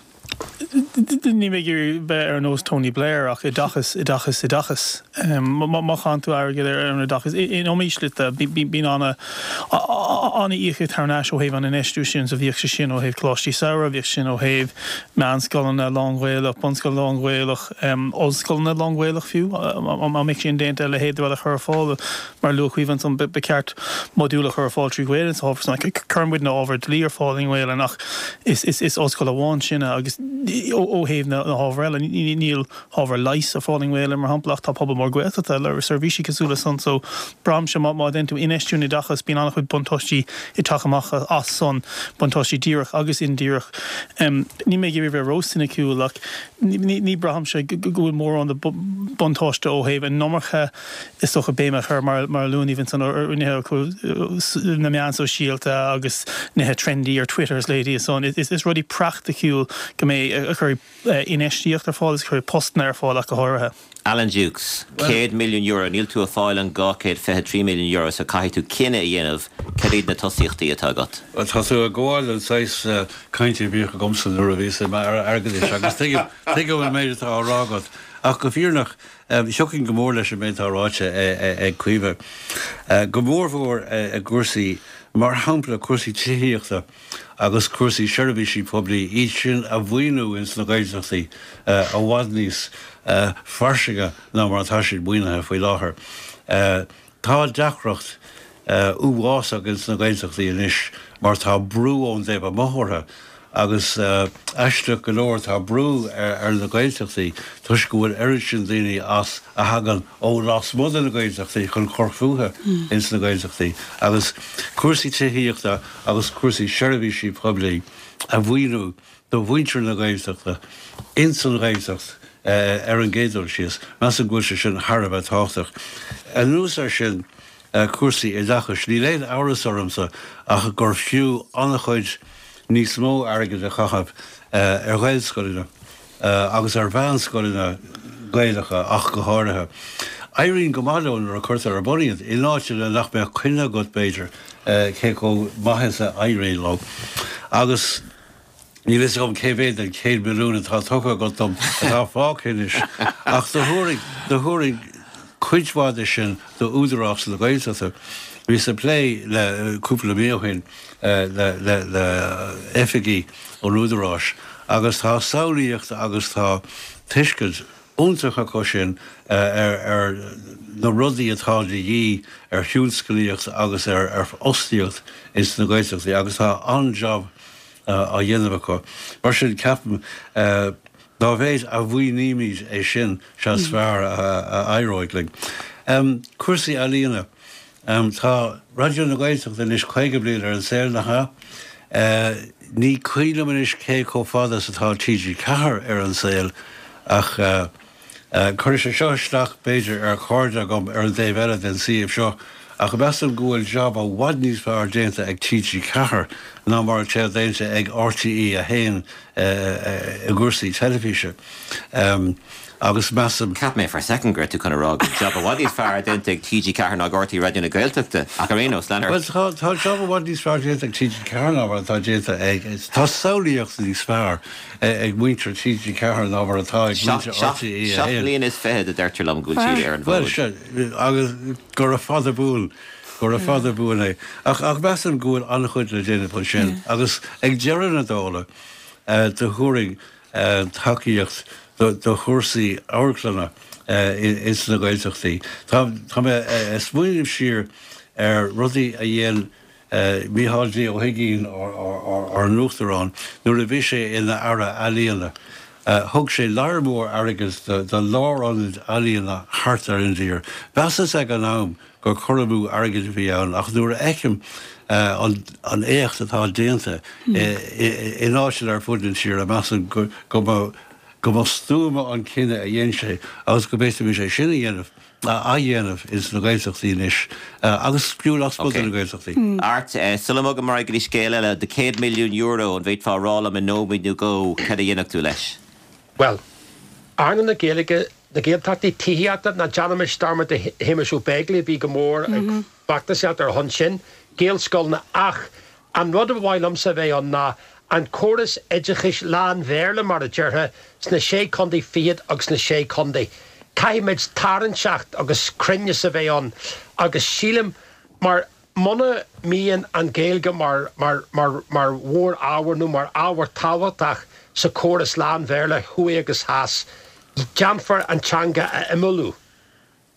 Níl mé ag iarraidh bheith ar nós Tony Blair ach oideachas, oideachas, oideachas. Má chaitheann tú airgead ar an oideachas, in iomaí slite, bíonn an-íocaíocht thar n-ais ó thaobh an infheistiú sin, so bhíodh sé sin ó thaobh coláistí samhraidh, bhíodh sin ó thaobh meánscoileanna lán-Ghaelach, bunscoileanna lán-Ghaelach, ollscoileanna lán-Ghaelach fiú, dá mbeadh sé indéanta a leithéid de rud a chur ar fáil. Mar a luaigh Caoimhe ansan, ba cheart modúil a chur ar fáil trí Ghaelainn sa ábhar san. Cuireann muidne ábhar dlí ar fáil i nGaelainn ach is ollscoil amháin sinne agus ó thaobh na hábhair eile, níl ábhar leighis ar fáil i nGaelainn mar shampla ach tá pobal mór Gaeltachta le seirbhísí cosúil le san. So braithimse má dhéanann tú infheistiú in oideachas bíonn an-chuid buntáistí ag teacht amach as san, buntáistí díreach agus indíreach. Níl mé ag iarraidh bheith ró-soiniciúil ach ní braithimse go bhfuil mórán de buntáiste ó thaobh an iomarca is dócha, béim a chur, mar a luann Aoibhe ansan, ar nithe na meán sóisialta agus nithe trendy ar Twitter is leithéidí san. Is rudaí praiticiúil go mbeidh a chuirfidh infheistíocht ar fáil is a chuirfidh postanna ar fáil ach go háirithe. Alan Dukes, €100 milliún, níl tú ag fáil an €223 milliún so caithfidh tú cinneadh a dhéanamh cad iad na tosaíochtaí atá agat? Bhuel, tá tú ag gabháil don saghas cainte a bhíodh agamsa nuair a bhíos i m'aire airgeadais agus tuigim an méid atá á rá agat. Ach go fírinneach, Thiocfainn go mór leis an méid atá ráite ag Caoimhe, go mórmhór i gcúrsaí, mar shampla, cúrsaí tithíochta agus cúrsaí seirbhísí poiblí, iad sin a mhaoiniú ins na Gaeltachtaí i bhfad níos fairsinge ná mar atá siad maoinithe faoi láthair. Tá deacracht uafásach ins na Gaeltachtaí anois mar tá brú ón dtaobh amuigh orthu agus aisteach go leor tá brú ar na Gaeltachtaí toisc go bhfuil oiread sin daoine as a thagann ó lasmuigh de na Gaeltachtaí chun cur fúthu ins na Gaeltachtaí agus cúrsaí tithíochta agus cúrsaí seirbhísí poiblí a mhaoiniú do mhuintir na Gaeltachta ins an Ghaeltacht ar an gcéad dul síos. Measaim go bhfuil sé sin thar a bheith tábhachtach. Anuas air sin, cúrsaí oideachais, níl aon amhras ormsa ach gur fiú an-chuid níos mó airgid a chaitheamh ar Ghaelscoileanna agus ar mheánscoileanna Gaelacha ach go háirithe. Éiríonn go maith leo nuair a cuirtear ar bun iad, in áiteanna nach mbeadh coinne agat, b'fhéidir, cé chomh maith is a éiríonn leo. Agus. Níl fhios agam cé mhéad den 100 milliún atá tugtha agat dom atá fágtha anois, ach do thabharfainn, do thabharfainn cuid mhaith de sin do Údarás na Gaeltachta. Bhíos ag plé le, cúpla mí ó shin, le, le, le oifigigh an Údaráis agus tá samhlaíocht agus tá tuiscint iontach acu sin ar, ar na rudaí atá de dhíth ar thionsclaíocht agus ar, ar fhostaíocht ins na Gaeltachtaí agus tá an-jab á dhéanamh acu. Mar sin, ceapaim, dá mhéid a mhaoinímid é sin, sea is fearr a éireoidh linn. Cúrsaí ealaíona. Tá Raidió na Gaeltachta anois 50 bliain ar an saol, nach ea? Ní cuimhin liom anois cé chomh fada is atá TG4 ar an saol ach Cuirfidh sé seo isteach, b'fhéidir, ar chairde agam ar an dtaobh eile den suíomh seo, ach measaim go bhfuil jab i bhfad níos fearr déanta ag TG4 ná mar atá déanta ag RTÉ 1 i gcúrsaí teilifíse. Agus measaim. Cheap mé for a second go raibh tú chun a rá go bhfuil jab i bhfad níos fearr déanta ag TG4 ná ag RTÉ Raidió na Gaeltachta, ach ar aon nós, lean ort. Bhuel, tá jab i bhfad níos fearr déanta ag TG4 ná mar atá déanta ag. Tá samhlaíocht níos fearr. ag muintir TG4 ná mar atá ag muintir RTÉ 1. Seacht mbliana is fichead a deirtear liom go bhfuil siad ar an bhfód. Bhuel, sea, agus gura fada buan, gura fada buan é. Ach, ach measaim go bhfuil an-chuid le déanamh ansin agus ag deireadh na dála, do thabharfainn tacaíocht. do chúrsaí amharclainne ins na Gaeltachtaí. Tá mé ag smaoineamh siar ar rudaí a dhein Mícheál D. Ó hUigínn, ár n-uachtarán, nuair a bhí sé ina Aire Ealaíona. Thug sé lear mór airgid do lárionaid ealaíona thart ar an dtír. Mheasas ag an am gur cur amú airgid a bhí ann ach nuair a fheicim an éacht atá déanta in áiteanna ar fud na tíre, measaim go mba go mba stuama an cinneadh a dhein sé agus go bhféadfaimis é sin a dhéanamh, a athdhéanamh ins na Gaeltachtaí anois agus fiú lasmuigh de na Gaeltachtaí. Art, sula mbogaim ar aghaidh go dtí scéal eile, do €100 milliún, an bhféadfá a rá liom i nóiméad nó dhó cad a dhéanfadh tú leis? Bhuel, earnáil na Gaeilge, na Gaeltachtaí, tithíochta, ná déanaimis dearmad de Shéamus Ó Beaglaoich a bhí go mór ag feachtasaíocht ar a shon sin, Gaelscoileanna ach An rud a ba mhaith liomsa a bheith ann ná an córas oideachais lán-Bhéarla, mar a déarfá, sna Sé Contae Fichead agus sna Sé Contae. Caithfimid tarraingteacht agus cruinneas a bheith ann agus sílim, mar muna mbíonn an Ghaeilge mar, mar, mar, mar mhór-ábhar nó mar ábhar tábhachtach sa chóras lán-Bhéarla thuaidh agus theas, déanfar an teanga a imeallú.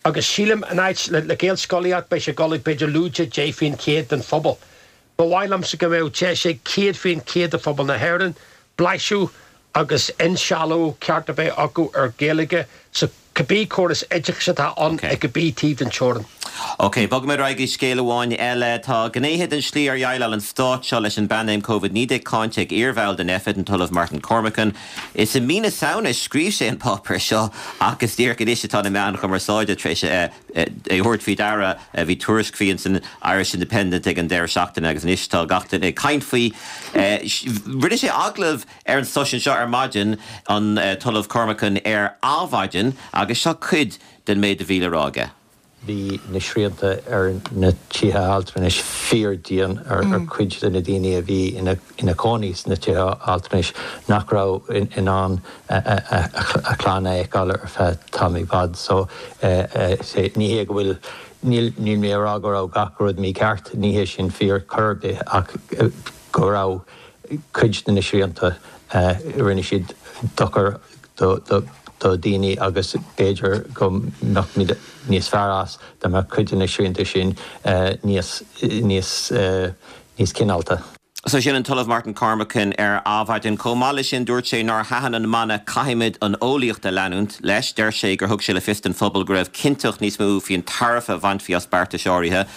Agus sílim, in áit le Gaelscolaíocht, beidh sé ag dul ag b'fhéidir lúide 10% den phobal. Ba mhaith liomsa go mbeadh deis ag 100% de phobal na hÉireann blaiseadh agus insealbhú ceart a bheith acu ar Ghaeilge sa cibé córas oideachais atá ann ag cibé taobh den teorainn. Ok, bogfaimid ar aghaidh go scéal amháin eile. Tá gnéithe den slí ar dhéileáil an stát seo leis an bpaindéim Covid-19 cáinte ag iarbhall den Nphet, an tOllamh Martin Cormican. Is i mí na Samhna a scríobh sé an páipéar seo ach is díreach anois atá na meáin chumarsáide tar éis é a thabhairt faoi deara. Bhí tuairisc faoi ins an Irish Independent ag an deireadh seachtaine agus anois tá gach duine ag caint faoi. Rinne sé agallamh ar an stáisiún seo ar maidin, an tOllamh Cormican, ar Adhmhaidin agus seo cuid den méid a bhí le rá aige. Bhí na srianta ar na tithe altranais fíor-dian ar chuid de na daoine a bhí ina cónaí sna tithe altranais nach raibh in ann a chlann a fheiceáil ar feadh tamall i bhfad. So, ní hé go bhfuil, níl mé ag rá go raibh gach rud mícheart, ní hé sin fíor chor ar bith ach go raibh cuid de na srianta, rinne siad dochar do dhaoine agus b'fhéidir go mbeadh muid níos fearr as dá mbeadh cuid de na srianta sin níos, níos, níos cineálta. So sin an tOllamh Martin Cormican ar Adhmhaidin. Chomh maith leis sin dúirt sé nár thaitin an mana 'Caithfimid an eolaíocht a leanúint' leis. Deir sé gur thug sé le fios don phobal go raibh cinnteacht níos mó faoin tairbhe a bhainfí as beartais áirithe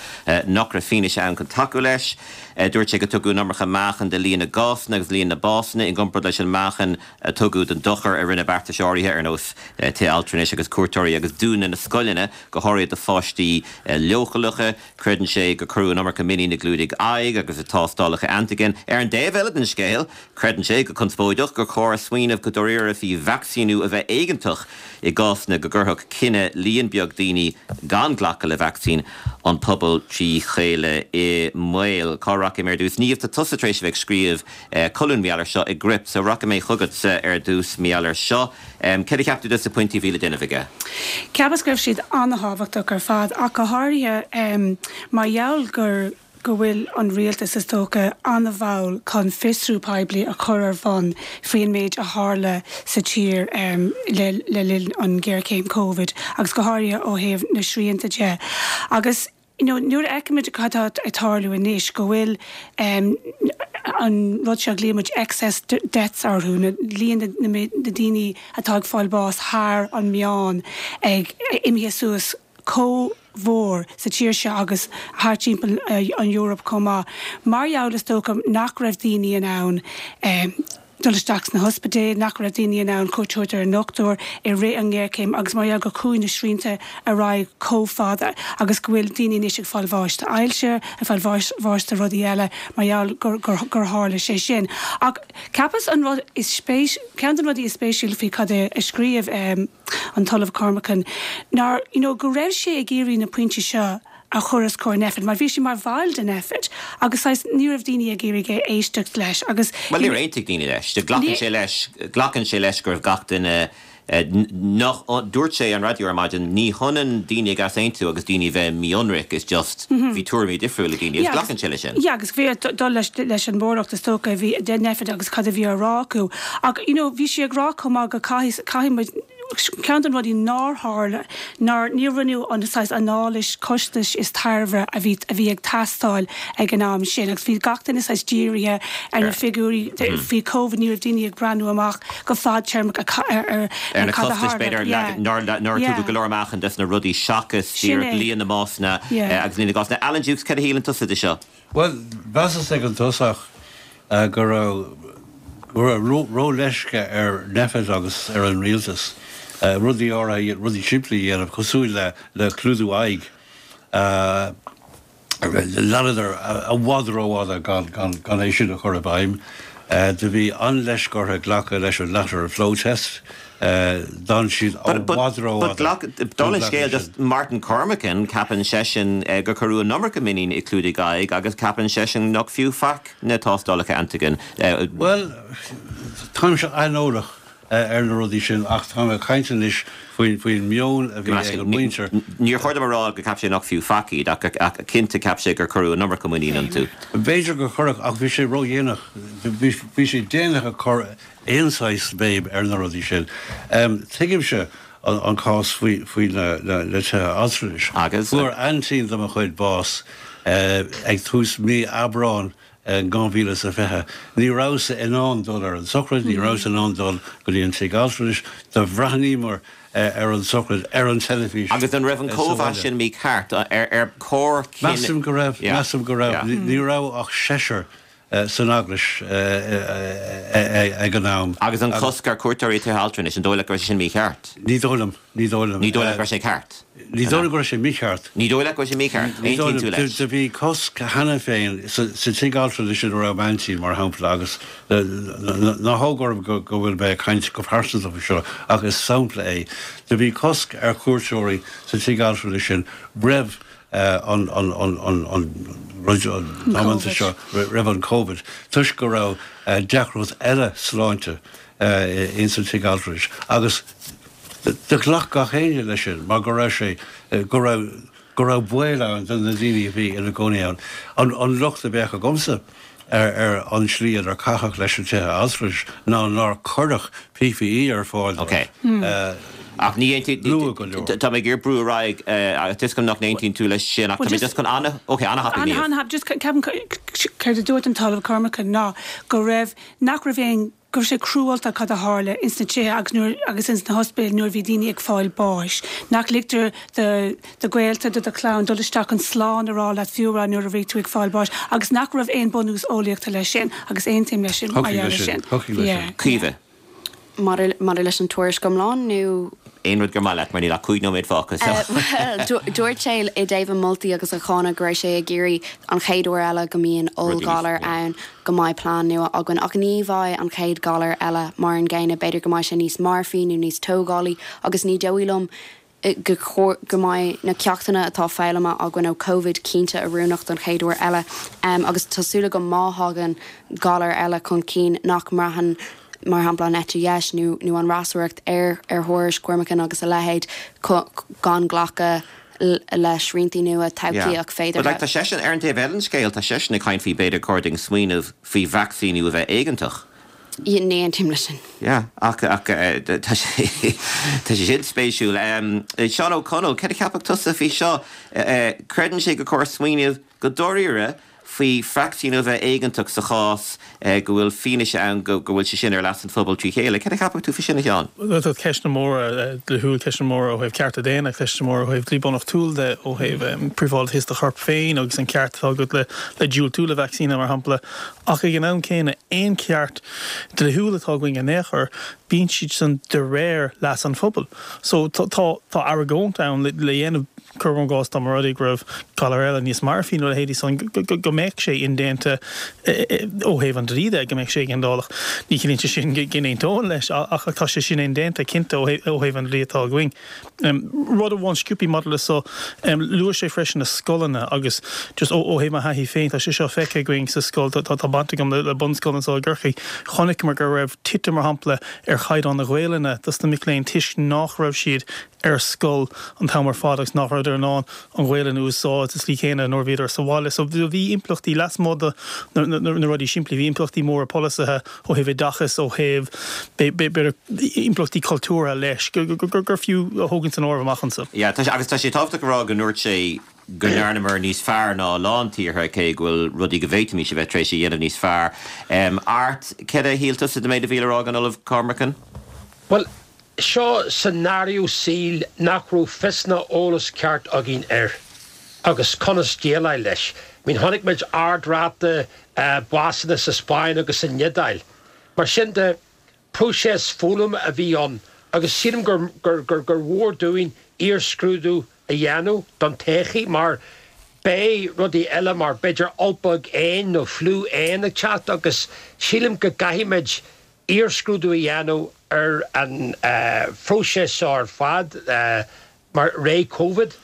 nach raibh fianaise ann chun tacú leis. Dúirt sé go tugadh an iomarca meáchain do líon na gcásanna agus líon na básanna i gcomparáid leis an meáchan a tugadh don dochar a rinne beartais áirithe ar nós tithe altranais agus cuairteoirí agus dúnadh na scoileanna, go háirithe do pháistí leochaileacha. Creideann sé gur cuireadh an iomarca muinín i gclúdaigh aghaidh agus i dtástálacha antaigin. Ar an dtaobh eile den scéal, creideann sé, go conspóideach, gur chóir smaoineamh go dáiríre faoi vacsaíniú a bheith éigeantach i gcásanna go gcuirfeadh cinneadh líon beag daoine gan glacadh le vacsaín an pobal trí chéile i mbaol. Cá rachaidh mé ar dtús? Niamh, tá tusa tar éis a bheith ag scríobh colún mar gheall air seo i gCruip, so rachaidh mé chugatsa ar dtús mar gheall air seo. Céard a cheap tú dos na pointí a bhí le déanamh aige? Cheapas go raibh siad an-thábhachtach ar fad, ach go háirithe mar gheall gur go bhfuil an rialtas, is dócha, an-mhall chun fiosrú poiblí a chur ar bun faoin méid a tharla sa tír le le linn an ghéarchéim Covid agus go háirithe ó thaobh na srianta de. Agus you know nuair a fheicimid cad atá ag tarlú anois, go bhfuil an rud seo a ghlaoimid muid excess deaths orthu, na líon na daoine atá ag fáil bás thar an meán ag imithe suas chomh mhór sa tír seo agus thart timpeall an Eoraip chomh maith, mar gheall is dócha nach raibh daoine in ann dul isteach sna hospidéil, nach raibh daoine in ann cuairt a thabhairt ar an ndochtúir i rith an ngéarchéim agus mar gheall gur chuaigh na srianta ar aghaidh chomh fada agus go bhfuil daoine anois ag fáil bháis d'ailse, ag fáil bháis de rudaí eile mar gheall gur gur tharla sé sin. Ach cheapas an rud is spéis, ceann de na rudaí is spéisiúla faoi cad é a scríobh an tOllamh Cormican ná you know go raibh sé ag iarraidh na pointí seo a chur os comhair Nphet mar bhí sé mar bhall de Nphet agus saghas ní raibh daoine ag iarraidh éisteacht leis agus Bhuel níor aontaigh daoine leis. Glacann sé leis, glacann sé leis go raibh gach duine. Nach, dúirt sé ar an raidió ar maidin, ní hionann daoine ag easaontú agus daoine a bheith mí-ionraic, it's just bhí tuairimí difriúla ag daoine agus glacann sé leis sin. Yeah, agus bhí ag dul leis leis an mbunreacht is dócha a bhí de Nphet agus cad a bhí á rá acu. Ach you know bhí sí ag rá chomh maith go caithfidh caithfidh muid ceann de na rudaí nár tharla nár níor rinneadh an saghas anailís costais is tairbhe a bhí a bhí ag teastáil ag an am sin agus bhí gach duine saghas dírithe ar na figiúirí faoi Covid ní raibh daoine ag breathnú amach go fadtéarmach ar ar na costais b'fhéidir nár nár tugadh go leor meáchain des na rudaí seachas díreach líon na mbásanna agus líon na gcásanna. Alan Dukes, cad a shíleann tusa de seo? Bhuel, mheasas ag an tosach go raibh go raibh ró-leisce ar Nphet agus ar an rialtas rudaí áirithe, rudaí simplí a dhéanamh cosúil le le clúdú aghaidh. Leanadar i bhfad rófhada gan é sin a chur i bhfeidhm. Do bhí an-leisce orthu glacadh leis an lateral flow test. D'fhan siad i bhfad rófhada gan Dála an scéil, just Martin Cormican, ceapann seisean gur cuireadh an iomarca muinín i clúdaigh aghaidh agus ceapann seisean nach fiú faic na tástálacha antigen. Bhuel, táimse aineolach ar na rudaí sin ach táim ag caint anois faoin meon a bhí ag an muintir. Níor chóir dom a rá gur cheap sé nach fiú faic iad ach cinnte cheap sé gur cuireadh an iomarca muinín iontu. B'fhéidir gur cuireadh ach bhí sé ródhéanach. Bhí sé déanach ag cur aon saghas béim ar na rudaí sin. Tuigimse an cás faoi na tithe altranais. Agus? Fuair aintín de mo chuid bás ag tús mí Aibreáin in 2020. Ní rabhas-sa in ann dul ar an tsochraid, ní rabhas in ann dul go dtí an tigh altranais. Do bhreathnaíomar ar an tsochraid ar an teilifís Agus an raibh an sa cóimheas bhaile. sin mícheart? Ar chóir cinneadh. Measaim go raibh, measaim go raibh. Ní raibh ach seisear san eaglais ag an am. Agus an cosc ar cuairteoirí tithe altranais, an dóigh leat go raibh sé sin mícheart? Ní dóigh liom, ní dóigh liom. Ní dóigh leat go raibh sé ceart? Ní dóigh liom go raibh sé mícheart. Ní dóigh leat go raibh sé mícheart? Aontaíonn tú leis? Do bhí cosc cheana féin sa tigh altranais ina raibh m'aintín, mar shampla, agus ná thóg orm go bhfuil mé ag caint go pearsanta faoi seo, ach is sampla é. Do bhí cosc ar chuairteoirí sa tigh altranais sin roimh an rud damanta seo, roimh an Covid, toisc go raibh deacracht eile sláinte ins an tigh altranais agus Do ghlac gach éinne leis sin mar go raibh sé, go raibh, go raibh baol ann do na daoine a bhí ina gcónaí ann. An, an locht a bheadh agamsa ar, ar an tslí inar caitheadh leis na tithe altranais ná nár cuireadh PPE ar fáil dóibh. Ok. Ach ní aontaíonn, luath go leor. Tá mé ag iarraidh brú ar aghaidh, tá 'fhios agam nach n-aontaíonn tú leis sin ach tá mé just chun ana, ok, ana-thapaidh Niamh. Ana-thapaidh, just ceapaim céard a dúirt an tOllamh Cormican ná go raibh, nach raibh aon, go raibh sé cruálta cad a tharla ins na tithe agus nuair agus ins na hospidéil nuair a bhí daoine ag fáil báis. Nach ligtear do do ghaolta, do do chlann dul isteach chun slán a rá leat fiú amháin nuair a bhí tú ag fáil báis agus nach raibh aon bunús eolaíochta leis sin agus aontaím leis sin mar gheall air sin. Thiocfadh leis sin. Caoimhe. Maidir maidir leis an tuairisc iomlán nó? Aon rud gur maith leat mar níl ach 5 nóiméad fágtha so. Bhuel, dúirt sé i dtaobh a moltaí agus a cháineadh go raibh sé ag iarraidh an chéad uair eile go mbíonn ollghalar ann go mbeidh plean nua againn. Ach ní bheidh an chéad ghalar eile mar an gcéanna, b'fhéidir go mbeidh sé níos marfaí nó níos tógálaí agus ní dóigh liom go go mbeidh na ceachtanna atá foghlamtha againn ó Covid cinnte oiriúnach don chéad uair eile. Agus tá súil agam má thagann galar eile chun cinn nach mbraitheann mar shampla an eite dheis nó nó an fhreasúracht ar ar thuairisc Cormican agus a leithéid gan glacadh le sriantaí nua todhchaíoch féideartha. But like tá seisean, ar an taobh eile den scéal, tá seisean ag caint faoi b'fhéidir chóir dúinn smaoineamh faoi vacsaíniú a bheith éigeantach. Yeah, ní aontaím leis sin. Yeah, ach, ach tá sé, tá sé sin spéisiúil. Seán Ó Conaill, cad a cheapfadh tusa faoi seo? Creideann sé gur chóir smaoineamh go dáiríre faoi vacsaíniú a bheith éigeantach sa chás go bhfuil fianaise ann go bhfuil sé sin ar leas an phobail trí chéile. Cad a cheapfadh tú faoi sin, a Sheáin? Tá ceisteanna móra dlíthiúil, ceisteanna móra ó thaobh cearta daonna, ceisteanna móra ó thaobh dlí bunreachtúil de, ó thaobh príobháideachas do choirp féin agus an ceart atá agat le diúltú le vacsaíní, mar shampla. Ach ag an am céanna, aon cheart dlíthiúil atá againn in aon chor, bíonn siad san de réir leas an phobail. So tá tá argóint ann le dhéanamh. Cuirim i gcás dá mba rud é go raibh galar eile níos marfaí nó a leithéidí san, go mbeadh sé indéanta ó thaobh an dlí de, go mbeadh sé éigeandálach. Ní chiallaíonn sé sin go n-aontóinn leis ach tá sé sin indéanta cinnte ó thaobh an dlí atá againn. Rud amháin sciobthaí maidir le so, luaigh sé freisin na scoileanna agus just ó thaobh mo thaithí féin, tá sé seo feicthe againn sa scoil, tá baint agam le bunscoil anseo i gCorcaigh, chonaiceamar go raibh titim mar shampla ar chaighdeán na Gaelainne dos na mic léinn toisc nach raibh siad ar scoil an t-am ar fad agus nach rabhadar in ann an Ghaelainn a úsáid sa tslí chéanna nuair a bhíodar sa bhaile. So bhí impleachtaí lasmuigh de na rudaí simplí, bhí impleachtaí móra polasaithe ó thaobh oideachais, ó thaobh b'fhéidir impleachtaí cultúrtha leis, gur fiú a thógaint san áireamh amach anseo. Yeah, tá sé, agus tá sé tábhachtach a rá go ndúirt sé go ndearnamar níos fearr ná a lán tíortha, cé go bhfuil rudaí go bhféadfaimis a bheith tar éis a dhéanamh níos fearr. Art, céard a shíl tusa den méid a bhí le rá ag an Ollamh Cormican? Bhuel, seo scenario saoil nach raibh fios ná eolas ceart againn air agus conas déileáil leis. I mean, chonaic muid ard-ráta básanna sa Spáinn agus san Iodáil. Mar sin de, próiseas foghlama a bhí ann agus sílim gur gur mhór dúinn iarscrúdú a dhéanamh don todhchaí mar beidh rudaí eile mar b'fhéidir ulbog éin nó fliú éan ag teacht agus sílim go gcaithfimid iarscrúdú a dhéanamh ar an phróiseas seo ar fad mar ré Covid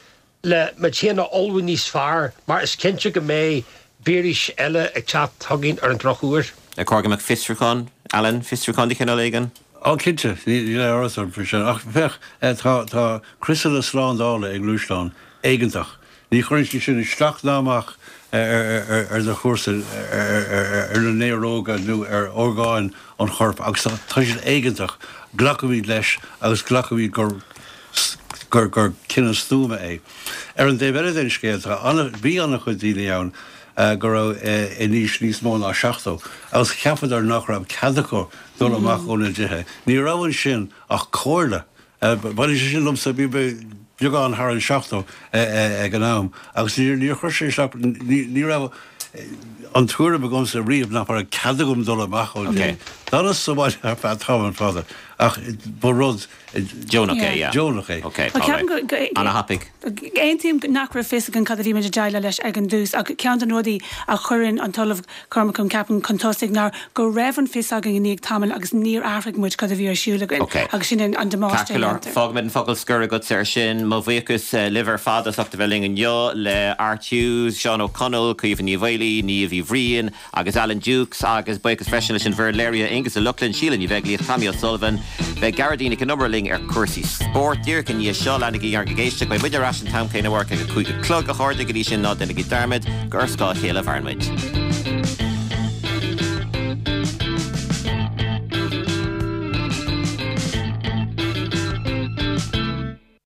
le muid féin a ullmhú níos fearr mar is cinnte go mbeidh víris eile ag teacht chugainn ar an drochuair. Ar chóir go mbeadh fiosrúchán, Alan, fiosrúchán de chineál éigin? Ó cinnte, níl aon amhras orm faoi sin. Ach féach, tá, tá criosanna slándála i ngluaisteáin éigeantach. Ní chuireann siad sin isteach ná amach ar do chúrsa, ar na néaróga nó ar orgáin an choirp agus tá siad éigeantach. Glacaimid leis agus glacaimid gur gur cinneadh stuama é. Ar an dtaobh eile den scéal, tá ana, bhí an-chuid daoine ann go raibh in aois níos mó ná 70 agus cheapadar nach raibh cead acu dul amach óna dtithe. Ní raibh ansin ach comhairle. Baineann sé sin liomsa, bhí mé beagán thar an 70 ag an am agus níor chuir sé isteach, ní raibh an tuairim agamsa riamh nach raibh cead agam dul amach ón dtigh. D'fhanas sa bhaile ar feadh tamall fada ach ba rud Deonach é, yeah. Deonach é. Ok, alright. Ana-thapaidh. Aontaím nach raibh fios againn cad a bhí muid ag déileáil leis ag an dtús ach ceann de na rudaí a chuireann an tOllamh Cormican, ceapaim, chun tosaigh ná go raibh an fios againn i ndiaidh tamaill agus níor athraigh muid cad a bhí ar siúl againn agus sin an damáiste a dhéantar. Fágfaimid an focal scoir agatsa ar sin. Mo bhuíochas libh ar fad as ucht a bheith linn inniu, le Art Hughes, Seán Ó Conaill, Caoimhe Ní Mhaolaí, Niamh Uí Bhriain agus Alan Dukes agus buíochas freisin leis an bhfoireann léirithe, Aonghus Ó Lochlainn, Síle Ní Bheaglaoich, Tommy O'Sullivan. Beidh Gearóidín Nic Con Iomaire linn ar chúrsaí spóirt díreach i ndiaidh seo. Leanaigí oraibh ag éisteacht. Beidh muid ar ais an t-am céanna amárach ag a 5 a chlog, a chairde. Go dtí sin, ná déanaigí dearmad gur ar scáth a chéile a mhaireann muid.